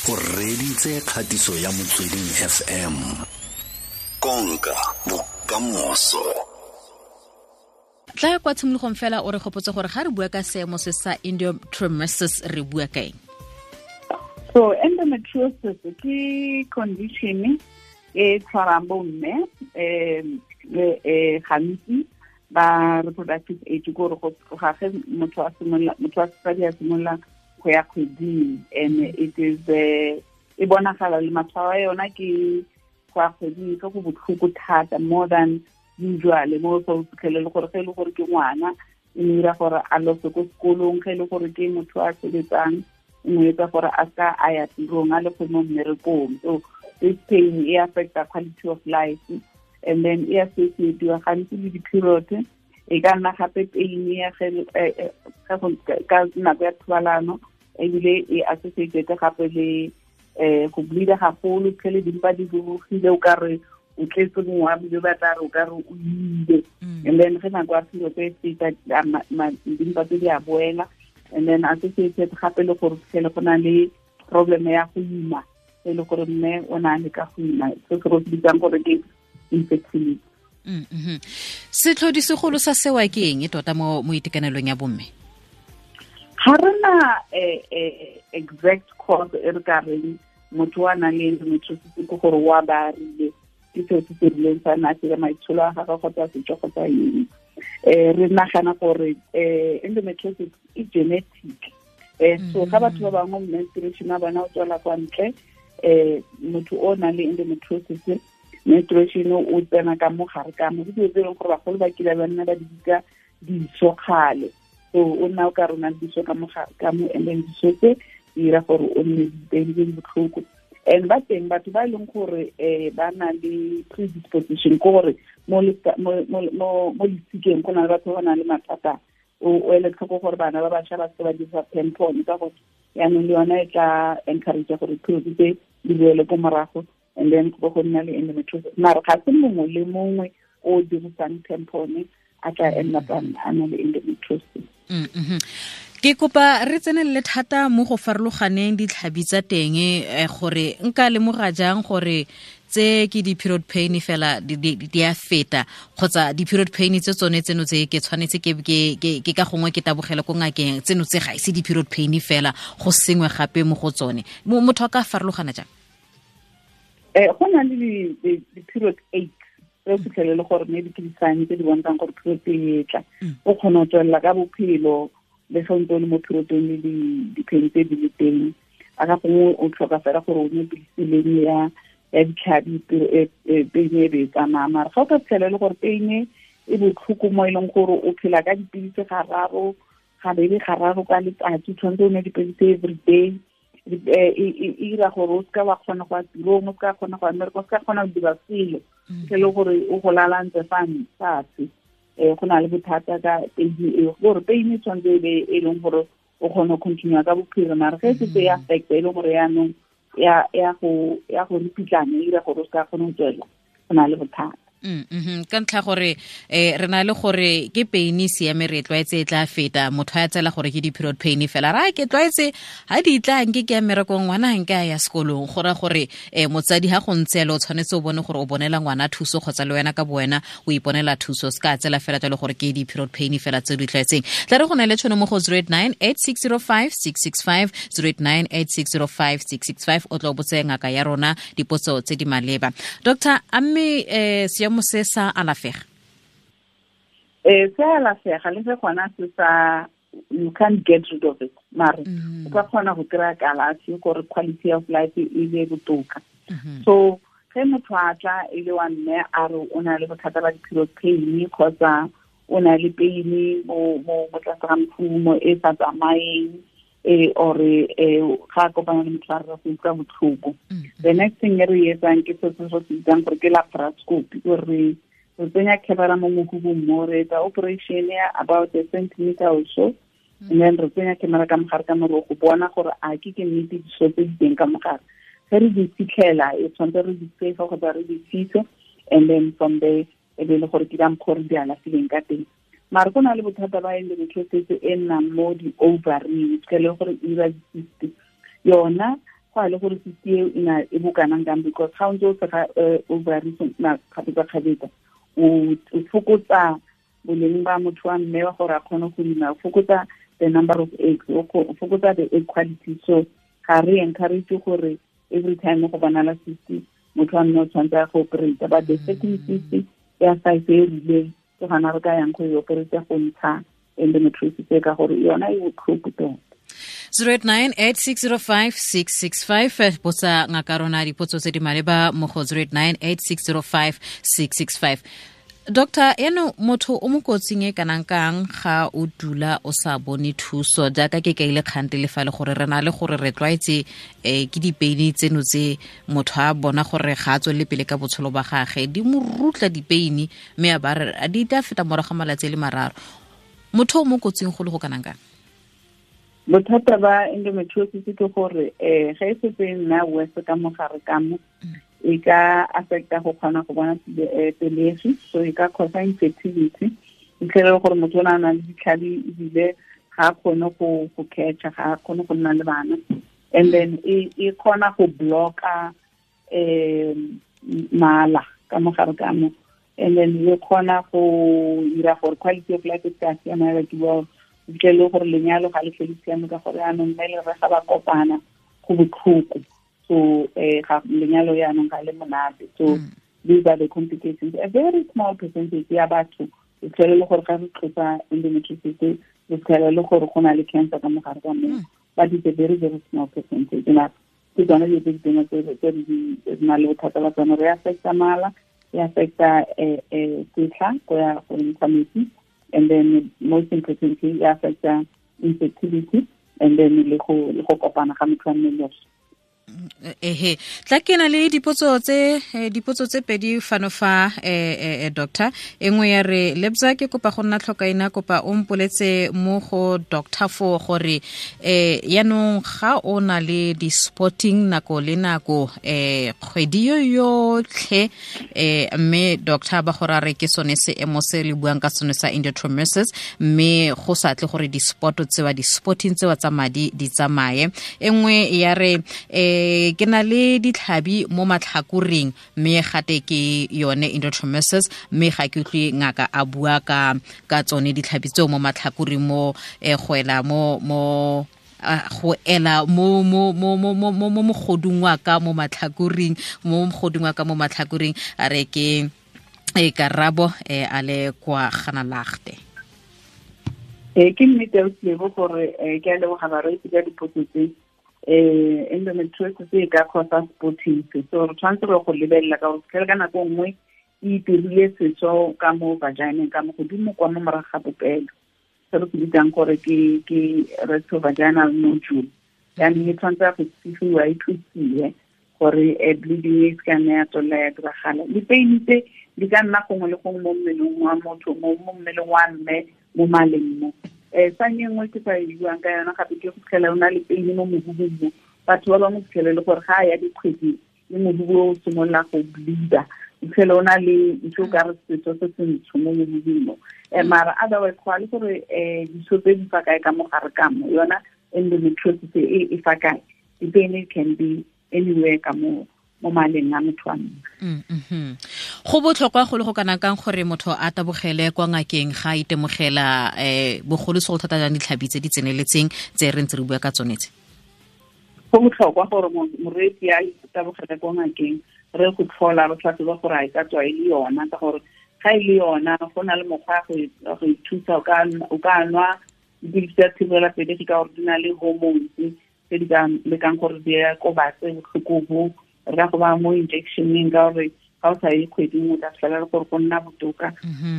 O reditse kgatiso ya Motsweding FM. Konka bokamoso. Tla kwa tshimologong fela o re gopotse gore ga re bua ka seemo se sa endometriosis re bua ka eng? So endometriosis ke condition e tshwarang bomme gantsi ba reproductive age, gore go tloga ge motho a simolola, motho wa sesadi a simolola go ya kgweding, and it is e bonagala le matshwao a yona ke go ya kgweding ke go botlhoko thata, more than usual, mo go fitlhele le gore ge e le gore ke ngwana e mo dira gore a lose ko sekolong, ge e le gore ke motho a sebetsang e mo etsa gore a ska a ya tirong, a le go mo mmerekong. So this pain e affecta quality of life, and then e associatiwa gantsi le di-period. E ka nna gape pain ya ka nako ya thobalano, ebile e associated gape le go bleeda gagolo, tlhele dimpa di rurugile, o ka re o tletse mongwe wa bile ba tla re o ka re o ile. And then ge nako ya period e feta, dimpa tse di a boela, and then associated gape le gore tlhele go na le problem ya go ima, e le gore mme o na le ka go ima, se se go bitsang gore ke infertility. Setlhodi segolo sa sewa ke eng e tota mo itekanelong ya bomme? Ga rena exact cause e re ka reng motho wa nang le endometriosis ke gore wa ba rile ke seo se se rileng sa na se maitsholo a gagwe kgotsa setso kgotsa eng. Re nagana gore endometriosis e genetic. So ga batho ba bangwe menstruation a bona o tswela kwa ntle, motho o nang le endometriosis menstruation o tsena ka mo gare ka mo, ke dilo tse e leng gore bagolo ba kile ba nna ba di bitsa diso kgale. So o nna o ka rona diso ka mo gare ka mo, and then diso tse di dira gore o nne dipain tse di botlhoko. And ba teng batho ba e leng gore ba na le predisposition, ke gore mo lesikeng go na le batho ba ba nang le mathata. O ele tlhoko gore bana ba bašwa ba se ba dirisa tampon, ka gore yaanong le yona e tla encourage gore period tse di boele ko morago, and then go go nna le endometriosis. Mara ga se mongwe le mongwe o dirisang tampon a tla end up a na le endometriosis. Ke kopa re tsenelele thata mo go farologaneng ditlhabi tsa teng, gore nka lemoga jang gore tse ke di-period pain fela di a feta, kgotsa di-period pain tse tsone tseno tse ke tshwanetse ke ka gongwe ke tabogele ko ngakeng, tseno tse ga ise di-period pain fela, go sengwe gape mo go tsone. Motho a ka farologana jang? Go na le di-period aches tse o fitlhelele gore maybe ke di-sign tse di bontshang gore period e tla. O kgona go tswelela ka bophelo le ge o ntse o le mo periodong le di-pain tse di le teng. A ka gongwe o tlhoka fela gore o nwe pilisi leng ya ditlhabi, pain e be e tsamaya. Mara ga o ka fitlhela e le gore pain e botlhoko mo e leng gore o phela ka dipilisi gararo, gabedi gararo ka letsatsi, o tshwanetse o nwe dipilisi every day, e dira gore o seka wa kgona go ya tirong, o seka kgona go ya mmereko, o seka kgona go dira selo, ke le gore o go lalantse fa fatshe. Go na le bothata ka pain eo, gore pain e tshwanetse e be e leng gore o kgone go continue ka bophelo, mara ge e setse e affecta e le gore yaanong ya go ripitlana, e dira gore o seka kgona go tswela, go na le bothata. Ka ntlha gore re na le gore ke pain e siame, re tlwaetse e tla feta, motho a tsela gore ke di-period pain fela, ra ke tlwaetse ha di tla nke ke ya mmerekong, ngwana ha nke a ya sekolong, go raya gore motsadi ha go ntse yalo o tshwanetse o bone gore o bonela ngwana thuso kgotsa le wena ka bo wena o iponela thuso, se ka tsela fela jalo gore ke di-period pain fela tse di tlwaetseng. Tla re go na le tšhono mo go 089 8605 665, 089 8605 665, o tla o botse ngaka ya rona dipotso tse di maleba. Doctor, a mme seemo se sa alafega? Se alafega, le ge gona se sa, you can't get rid of it, mare o ka kgona go kry-a kalafi gore quality of life e be botoka. So ge motho a tla e le wa mme a re o na le bothata ba di-period pain kgotsa o na le pain mo tlase ga mokhumo e sa tsamayeng, or ga a kopana le motho a re go utlwa botlhoko, the next thing e re e etsang ke se se bitsang gore ke laparoscopy, gore re tsenya camera mo mohubung mo, re etsa operation ya about a centimeter or so, and then re tsenya camera ka mogare ka moro go bona gore a ke nnete diso tse di teng ka mogare. Ge re di fitlhela, e tshwanetse re di safe kgotsa re di fise, and then from there e be le gore ke ka mokgwa re di alafileng ka teng. Mara go na le bothata ba endometriosis e nnang mo di-ovary, ke le gore e dira di-cyst. Yona Go a le gore cyst eo e bokanang kang, because ga o ntse o sega ovary kgapetsa-kgapetsa, o fokotsa boleng ba motho wa mme wa gore a kgone go ima, o fokotsa the number of eggs, o fokotsa the egg quality. So ga re encourage gore every time go bonala cyst motho wa mme o tshwanetse a go operate, but the second cyst ya size e rileng ke gona re ka yang go e operate go ntsha endometriosis e, ka gore yona e botlhoko tota. 0898605665, botsa ngaka rona dipotso tse di maleba mo go 0898605665. Doctor, eno motho o mo kotsing e kanang kang ga o dula o sa bone thuso, jaaka ke kaile kgante le fa le gore re na le gore re tlwaetse ke dipeini tseno tse motho a bona gore ga a tswelele pele ka botshelo ba gage, di mo rutla dipeini mme a ba re di tla feta morago ga malatsi a le mararo. Motho o mo kotsing go le go kanang kang? Bothata ba endometriosis ke gore ga e setse e nna worse ka mogare ka mo, e ka affecta go kgona go bona pelegi, so e ka causa infertility. Ntlhele gore motho o ne a na le ditlhabi ebile ga a kgone go catcha, ga a kgone go nna le bana. And then e kgona go blocka mala ka mogare ka mo, and then e kgona go dira gore quality of life e ka siama ya batho bao, ntle le gore lenyalo ga le tlhole siame ka gore yaanong mme le rre ga ba kopana go botlhoko. So ga lenyalo yaanong ga le monate. So these are the complications. A very small percentage ya batho e tlhole le gore ga re tlosa endometriosis re tlhole le gore go na le cancer ka mogare ka moo, but it's a very, very small percentage. Ke tsone dilo tse di teng tse di na le bothata ba tsone. Re affecta mala, e affecta setlha go ya go ntsha metsi, and then most importantly e affecta infertility, and then le go kopana ga motho wa mmele. Ehe, tla ke na le dipotso tse pedi fano fa doctor. E nngwe ya re, Lebza ke kopa go nna tlhokaina, kopa o mpoletse mo go doctor fo gore yaanong ga o na le di-spotting nako le nako kgwedi yo yotlhe, mme doctor ba gore a re ke sone seemo se le buang ka sone sa endometriosis, mme go sa tle gore di-spot tsewa di-spotting tsewa tsa madi di tsamaye. E nngwe ya re, ke na le ditlhabi mo matlhakoreng mme gate ke yone endometriosis, mme ga ke utlwe ngaka a bua ka tsone ditlhabi tseo mo matlhakoreng mo go ela mo mo go ela mo mo mo mo mo mo mogodung wa ka mo matlhakoreng, mo mogodung wa ka mo matlhakoreng. A re ke karabo a le kwa Ganalagte. Ke nnete o tlebo gore ke a leboga bareetsi ka dipotso tse. Endometriosis e ka causa spotting, so re tshwanetse re go lebelela ka gore fitlhele ka nako nngwe e itirile setso ka mo vagineng ka mo godimo kwa mo morago ga popelo, se re se bitsang gore ke rectovaginal nodule. Jaanong e tshwanetse go tsifiwa, e thusiwe gore bleeding e se ka nna ya tswelela ya diragala. Dipeini tse di ka nna gongwe le gongwe mo mmeleng wa motho, mo mmeleng wa mme, mo maleng mo. Sang e nngwe ke sa e buang ka yona gape ke go fitlhela o na le peini mo mohubung mo. Batho ba bangwe fitlhele le gore ga a ya dikgweding le mohubu o simolola go bleeda, o fitlhele o na le ntho o ka re setso se se ntsho mo mohubung mo. Mara otherwise go a le gore diso tse di fa kae ka mogare ka mo, yona endometriosis e fa kae. Dipeini can be anywhere ka mo mo maleng a motho wa mme. Go botlhokwa go le go kana kang gore motho a tabogele kwa ngakeng ga a itemogela bogolosegolo thata jang ditlhabi tse di tseneletseng tse re ntse re bua ka tsone tse? Go botlhokwa gore moreetsi a tabogele kwa ngakeng, re go tlhola re tlhatlhoba gore a e ka tswa e le yona, ka gore ga e le yona go na le mokgwa go ithusa. O ka nwa dipilisi tsa thibela pelegi ka gore di na le hormones tse di ka lekang gore di kobatse botlhoko bo. Re ka go ba mo injectioneng ka gore ga o sa ye kgweding o tla fitlhela le gore go nna botoka.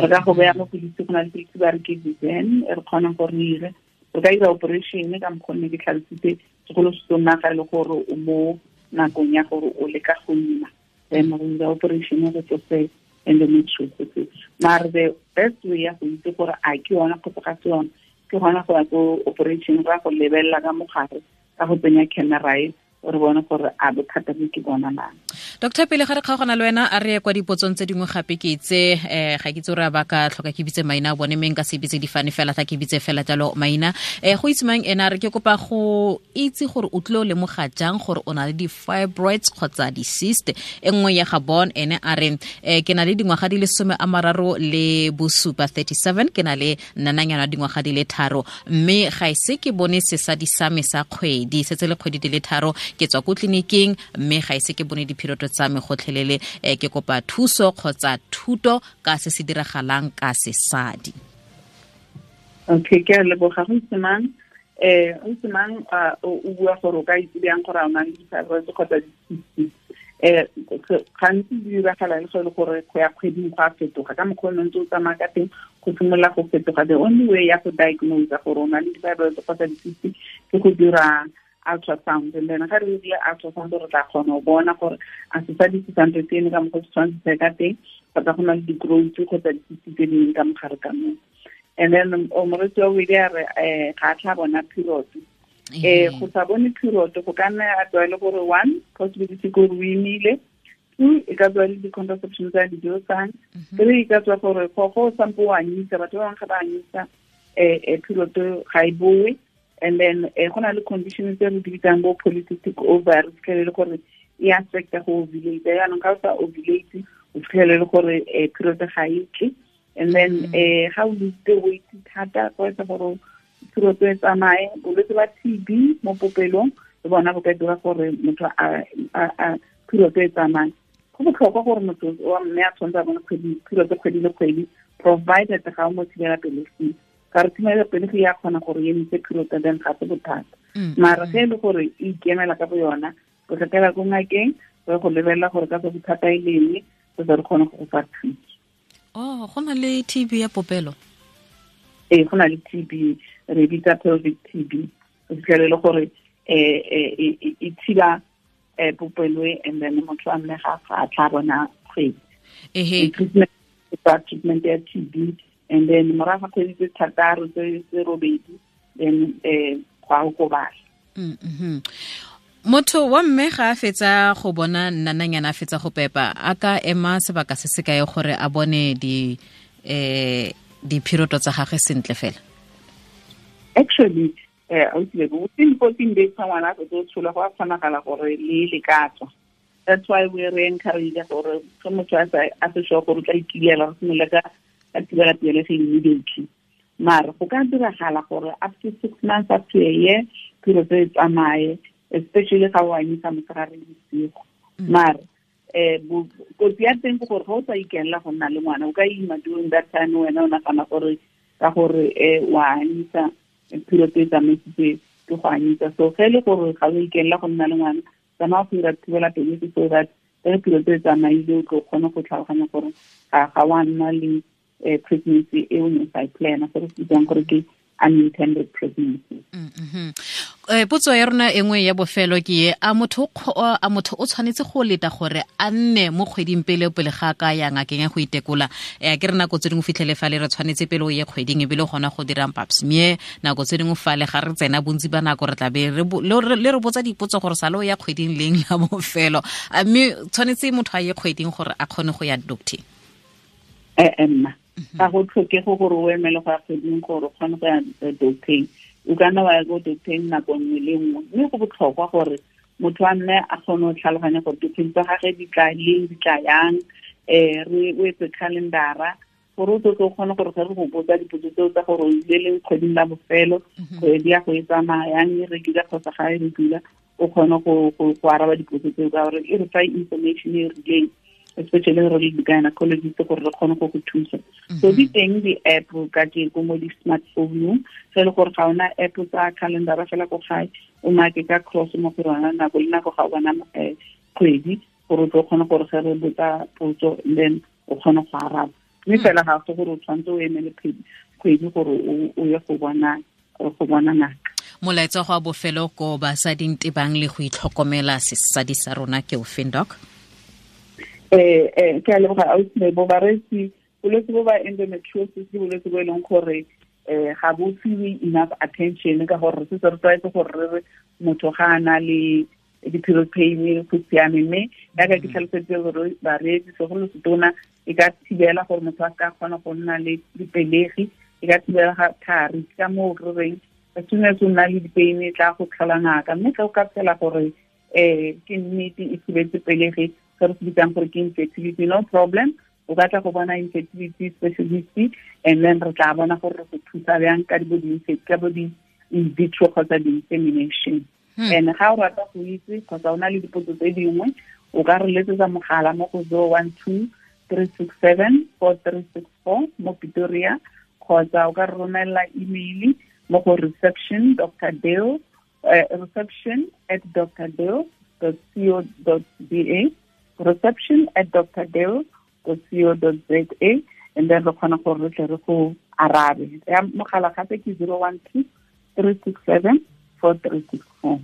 Re ka go beya mo pilisi, go na le pilisi ba re ke Vizen e re kgonang gore re ire. Re ka dira operation ka mokgwa ne ke tlhalositse, segolo se nna ga e le gore o mo nakong ya gore o leka go ima, then re dira operation re tlose endometriosis. Mare the best way ya go itse gore a ke yona kgotsa ga se yona ke gona go ya ko operation, ra go lebelela ka mogare ka go tsenya camera e Re bone gore a bothata bo ke bona na. Doctor, pele ga re kgaogana le wena, a re ye kwa dipotsong tse dingwe gape. Ke itse ga ke itse gore ba ka tlhoka ke bitse maina a bone, mme nka se bitse difane fela, tla ke bitse fela jalo maina. Go itse mang ena re ke kopa go itse gore o tlile o lemoga jang gore o na le di-fibroids kgotsa di-cyst. E nngwe ya ga bon ene a re, ke na le dingwaga di le 37, 37, ke na le nnananyana dingwaga di le 3, mme ga ise ke bone sesadi sa me sa kgwedi, setse le kgwedi di le 3. Ke tswa ko tleliniking mme ga ise ke bone diphiroto tsa me gotlhelele. Ke kopa thuso kgotsa thuto ka se se diragalang ka sesadi. Okay, ke a leboga. Go itse mang, o itse mang, o bua gore o ka itse bjang gore a o na le di-fibroids kgotsa di-cysts. Gantsi di diragala le go le gore go ya kgweding go a fetoga ka mokgwa o ne ntse o tsamaya ka teng, go simolola go fetoga. The only way ya go diagnose gore o na le di-fibroids kgotsa di-cysts ke go dira ultrasound, and then ga re dirile ultrasound re tla kgona go bona gore a sesadi se santse se eme ka mokgwa se tshwanetse se ka teng, kgotsa go na le di-growth kgotsa di-cysts tse dingwe ka mogare ka moo. And then o moretsi wa bobedi a re, ga a tla bona period. Go sa bone period go ka nna a tswa e le gore one possibility ke gore o imile, two e ka tswa le di-contraception tsa di dirisang, three e ka tswa gore go sampo o anyisa, batho ba bangwe ga ba anyisa, period ga e boe. And then go na le condition tse re di bitsang bo polycystic ovary, fitlhele le gore e affecta go ovulate. Jaanong ga o sa ovulate, o fitlhele le gore period ga e tle. And then ga o lose weight thata, go etsa gore period e tsamaye. Bolwetse ba TB mo popelong le bona bo ka dira gore motho a period e tsamaye. Go botlhokwa gore motho wa mme a tshwanetse a bone period kgwedi le kgwedi, provided ga o mo thibela pelegi. Ka re thibela pelegi ya kgona gore e emise period, then ga se bothata. Mara ge e le gore e ikemela ka bo yona, o tla ko ngakeng re go lebelela gore ka tsa bothata e leng, re tle re kgone go go fa thuso. Oh, go na le TB ya popelo? Ee, go na le TB, re bitsa pelvic TB. O fitlhele le gore e thiba popelo e, and then motho a mme ga a tla bona kgwedi. Treatment ya TB, and then morago ga kgwedi tse 6 tse 8, then go a okobala. Motho wa mme ga a fetsa go bona nnananyana, a fetsa go pepa, a ka ema sebaka se se kae gore a bone diphiroto tsa gagwe sentle fela? Actually, within 14 days fa ngwana a fetsa go tsholwa, go a kgonagala gore le le ka tswa. That's why we re encourage gore ge motho a se sure gore o tla ikilela, re simolola ka thibela pelegi immediately. Mara go ka diragala gore up to 6 months, up to a year, period e tsamaye, especially ga o anyisa motshegare le bosigo. Mara kotsi ya teng ke gore ga o sa ikenela go nna le ngwana, o ka ima during that time, wena o nagana gore ka gore wa anyisa, period e tsamaisitse ke go anyisa. So ge e le gore ga o ikenela go nna le ngwana, tsamaya go dira thibela pelegi so that ge period e tsamaile o tlo kgone go tlhaloganya gore ga wa nna le pregnancy e o neng sa e plana, se re se bitsang gore ke unintended pregnancy. Potso ya rona e nngwe ya bofelo ke e, a motho o tshwanetse go leta gore a nne mo kgweding pele pele ga ka ya ngakeng ya go itekola? Ke re nako tse dingwe fitlhele fale re tshwanetse pele o ye kgweding ebile gona go dirang pap smear, nako tse dingwe fale ga re tsena bontsi ba nako re tla be le re botsa dipotso gore sale o ya kgweding leng la bofelo. A mme tshwanetse motho a ye kgweding gore a kgone go ya doctor? Nna ga go tlhokege gore o emele go ya kgweding gore o kgone go ya doctor. O ka nna wa ya ko doctor nako nngwe le nngwe, mme go botlhokwa gore motho a nne a kgone go tlhaloganya gore dikgwedi tsa gagwe di tla leng, di tla yang, re o etse calendara gore o tle o kgone gore ge re go botsa dipotso tseo tsa gore o ile leng kgweding la bofelo, kgwedi ya go e tsamaya yang e regular kgotsa ga e regular, o kgone go araba dipotso tseo ka gore e re fa information e rileng, especially re le di-gynecologist gore re kgone go go thusa. So di teng di-app ka tjeko mo di-smartphone-ong, ge e le gore ga ona app tsa calendara fela ko gae, o make ka cross mo go yona nako le nako ga o bona kgwedi, gore o tlo kgone gore ge re botsa potso then o kgone go araba. Mme fela ga se gore o tshwanetse o emele kgwedi gore o ye go bona ngaka. Molaetsa go a bofelo ko basading tebang le go itlhokomela sesadi sa rona ke o feng, Doc? Ke a leboga ausi Lebo. Bareetsi, bolwetse bo ba endometriosis ke bolwetse bo e leng gore ga bo fiwe enough attention, ka gore re setse re tlwaetse gore re re motho ga a na le di-period pain go siame. Mme yaka ke tlhalosetse gore bareetsi, segolo setona, e ka thibela gore motho a ka kgona go nna le dipelegi, e ka thibela ga thari. Ka moo re reng, as soon as o nna le dipain, e tla go tlhola ngaka. Mme ge o ka phela gore ke nnete e thibetse pelegi, se re se bitsang gore ke infertility, no problem, o ka tla go bona infertility specialist, and then re tla bona gore re go thusa bjang ka bo di-in vitro kgotsa di-insemination. And ga o rata go itse kgotsa o na le dipotso tse dingwe, o ka re letsetsa mogala mo go 012 367 4364 mo Pretoria, kgotsa o ka re romelela email mo go reception dr dale reception@drdale.co.za, reception@drdale.co.za, and then re kgona gore re tle re go arabe. Ya mogala gape ke 012 367 4364.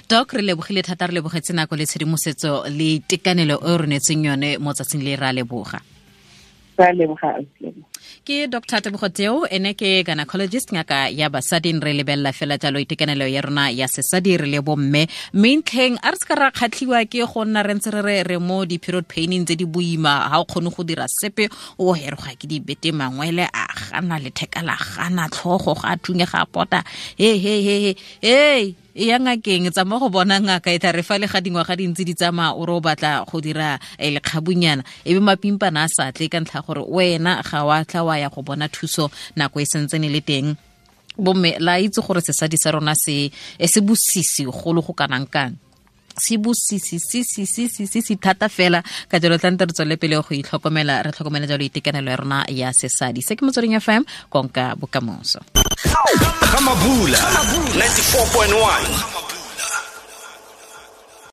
Doc, re lebogile thata, re lebogetse nako le tshedimosetso le tekanelo e re neetseng yone mo tsatsing le. Re a leboga. Ra leboga. Ke Dr Tebogo Teo, ene ke gynecologist, ngaka ya basadi. Re lebelela fela jalo itekanelo ya rona ya sesadi re le bomme, mme ntlheng a re se ka ra kgatlhiwa ke go nna re ntse re re re mo di-period paining tse di boima, ga o kgone go dira sepe, o heroga ke dibete, mangwele a gana, letheka la gana, tlhogo ga a thunye, ga a pota, he he he he he, e ya ngakeng, tsamaya go bona ngaka. E tla re fa le ga dingwaga dintsi di tsamaya, o re o batla go dira lekgabunyana, e be mapimpana a sa tle ka ntlha gore wena ga wa tla wa ya go bona thuso nako e sentsene le teng. Bomme, la itse gore sesadi sa rona se se bosisi golo go kanang kang, se bosisi se se se se se se thata fela. Ka jalo tlante re tswele pele go itlhokomela, re tlhokomele jalo itekanelo ya rona ya sesadi. Se ke Motsweding FM, konka bokamoso. Ga Mabula 94.1.